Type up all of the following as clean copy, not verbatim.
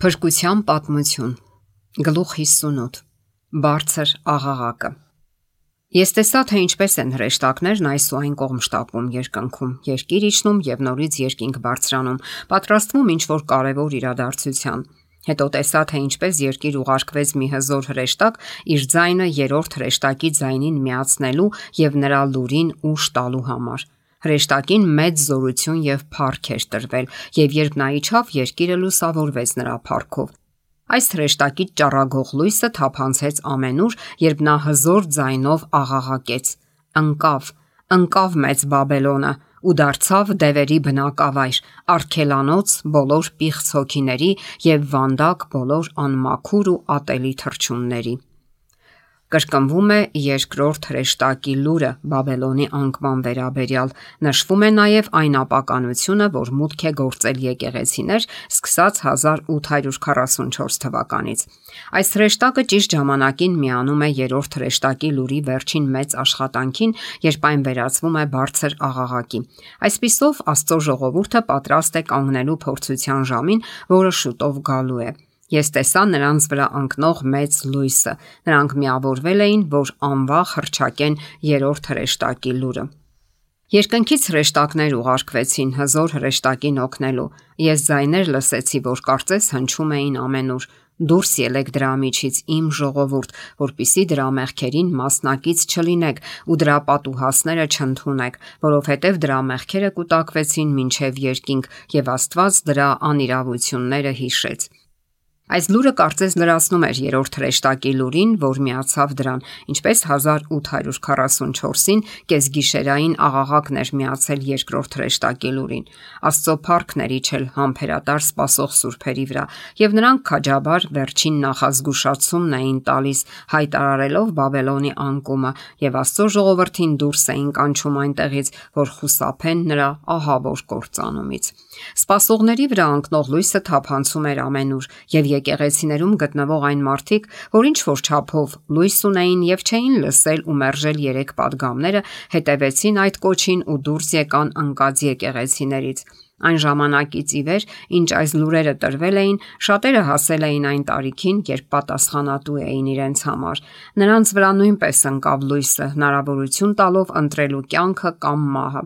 Փրկության պատմություն, գլուխ 58, բարձր աղաղակը։ Ես տեսա, թե ինչպես են հրեշտակներն այս ու այն կողմ շտապում երկնքում, երկիր իջնում եւ նորից երկինք բարձրանում, պատրաստվում ինչ-որ կարևոր իրադարձության։ Հետո տեսա, թե ինչպես երկիր ուղարկվեց մի հզոր հրեշտակ իր ձայնը երրորդ հրեշտակի ձայնին միացնելու եւ նրա լուրին ուժ տալու համար։ Հրեշտակին մեծ զորություն եւ փառք էր տրվել, եւ երբ նա իջավ, երկիրը լուսավորվեց նրա փառքով։ Այս հրեշտակի ճառագող լույսը թափանցեց ամենուր, երբ նա հզոր ձայնով աղաղակեց. «Ընկավ, ընկավ մեծ Բաբելոնը ու դարձավ դևերի բնակավայր, արգելանոց բոլոր պիղծ հոգիների եւ վանդակ բոլոր անմաքուր ու ատելի թռչունների»։ Կրկնվում է երկրորդ հրեշտակի լուրը Բաբելոնի անկման վերաբերյալ, նշվում է նաև այն ապականությունը, որ մուտք է գործել եկեղեցիներ սկսած 1844 թվականից։ Այս հրեշտակը ճիշտ ժամանակին միանում է երրորդ հրեշտակի լուրի վերջին մեծ աշխատանքին, երբ այն վերածվում է բարձր աղաղակի։ Այսպիսով Աստծո ժողովուրդը պատրաստ է կանգնելու փորձության ժամին, որը շուտով գալու է։ Ես տեսա նրանց վրա ընկնող մեծ լույսը։ Նրանք միավորվել էին, որ անվախ հռչակեն երրորդ հրեշտակի լուրը։ Երկնքից հրեշտակներ ուղարկվեցին հզոր հրեշտակին օգնելու։ Ես ձայներ լսեցի, որ կարծես հնչում էին ամենուր. «Դուրս ելեք դրա միջից, իմ ժողովուրդ, որպիսի դրա մեղքերին մասնակից չլինեք ու դրա պատուհասները չընդունեք, որովհետև դրա մեղքերը կուտակվեցին մինչև երկինք, եւ Աստված դրա անիրավությունները հիշեց»։ Այս լուրը կարծես լրացնում էր երրորդ հրեշտակի լուրին, որ միացավ դրան, ինչպես 1844-ին կեսգիշերային աղաղակն էր միացել երկրորդ հրեշտակի լուրին։ Աստծո փառքն էր իջել համբերատար սպասող սուրբերի վրա, եւ նրանք քաջաբար վերջին նախազգուշացումն էին տալիս, հայտարարելով Բաբելոնի անկումը, եւ Աստծո ժողովրդին դուրս էին կանչում այնտեղից, որ խուսափեն նրա ահավոր կործանումից։ Սպասողների վրա ընկնող լույսը թափանցում էր ամենուր, եւ եկեղեցիներում գտնվող այն մարդիկ, որ ինչ որ չափով լույս ունեին եւ չէին լսել ու մերժել երեք падգամները, հետևեցին այդ կոչին ու դուրս եկան ընկած եկեղեցիներից։ Այն ժամանակից ի վեր, ինչ այս լուրերը տրվել էին, շատերը հասել էին այն տարիքին, երբ պատասխանատու էին իրենց համար։ Նրանց վրա նույնպես ընկավ լույսը, հնարավորություն տալով ընտրելու կյանքը կամ մահը։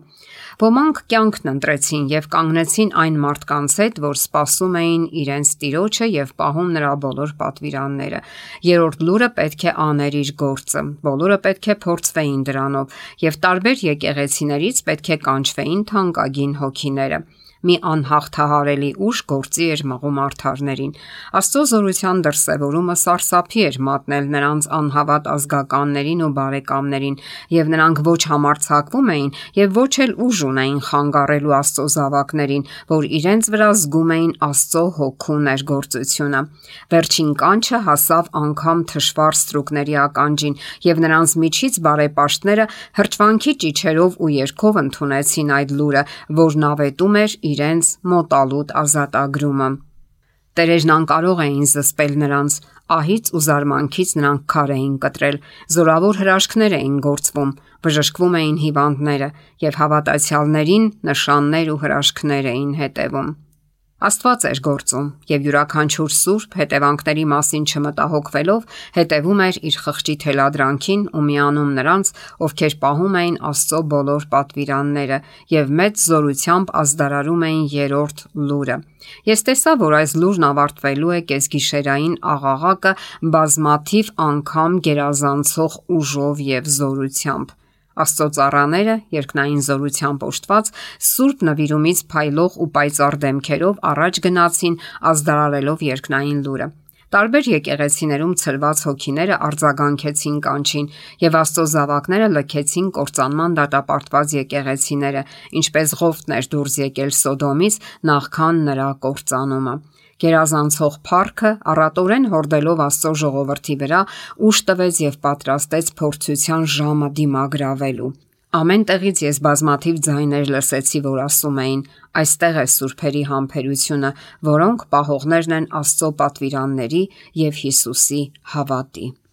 Ոմանք կյանքն ընտրեցին եւ կանգնեցին այն մարդկանց հետ, որ սպասում էին իրենց Տիրոջը եւ պահում նրա բոլոր պատվիրանները։ Երրորդ լուրը պետք է աներ իր գործը։ Բոլորը պետք է փորձվեին դրանով եւ տարբեր եկեղեցիներից պետք է կանչվեին թանկագին հոգիները։ Մի անհաղթահարելի ուժ գործի էր մղում արդարներին։ Աստծո զորության դրսևորումը սարսափի էր մատնել նրանց անհավատ ազգականներին ու բարեկամներին, եւ նրանք ոչ համարձակվում էին եւ ոչ էլ ուժ ունեին խանգարելու Աստծո զավակներին, որ իրենց վրա զգում էին Աստծո հոգու ներգործությունը։ Վերջին կանչը հասավ անգամ թշվառ ստրուկների ականջին, եւ նրանց միջից բարեպաշտները հրճվանքի ճիչերով ու երգով ընդունեցին այդ լուրը, որն ավետում էր իրենց մոտալուտ ազատագրումը։ Տերերն անկարող էին զսպել նրանց, ահից ու զարմանքից նրանք քար էին կտրել, զորավոր հրաշքներ էին գործվում, բժշկվում էին հիվանդները եւ հավատացյալներին նշաններ ու հրաշքներ էին հետևում։ Աստված էր գործում, եւ յուրաքանչյուր սուրբ հետևանքների մասին չմտահոգվելով հետևում էր իր խղճի թելադրանքին ու միանում նրանց, ովքեր պահում էին Աստծո բոլոր պատվիրանները եւ մեծ զորությամբ ազդարարում էին երրորդ լուրը։ Ես տեսա, որ այս լուրն ավարտվելու է կեսգիշերային աղաղակը բազմաթիվ անգամ գերազանցող ուժով եւ զորությամբ։ Աստծո ծառաները, երկնային զորությամբ օժտված, սուրբ նվիրումից փայլող ու պայծառ դեմքերով առաջ գնացին, ազդարարելով երկնային լուրը։ Տարբեր եկեղեցիներում ցրված հոգիները արձագանքեցին կանչին, եւ Աստծո զավակները լքեցին կործանման դատապարտված եկեղեցիները, ինչպես Ղովտն էր դուրս եկել Սոդոմից նախքան նրա կործանումը։ Գերազանցող փառքը առատորեն հորդելով Աստծո ժողովրդի վրա ուժ տվեց եւ պատրաստեց փորձության ժամը դիմագրավելու։ Ամեն տեղից ես բազմաթիվ ձայներ լսեցի, որ ասում էին. «Այստեղ է սուրբերի համբերությունը, որոնք պահողներն են Աստծո պատվիրանների եւ Հիսուսի հավատի»։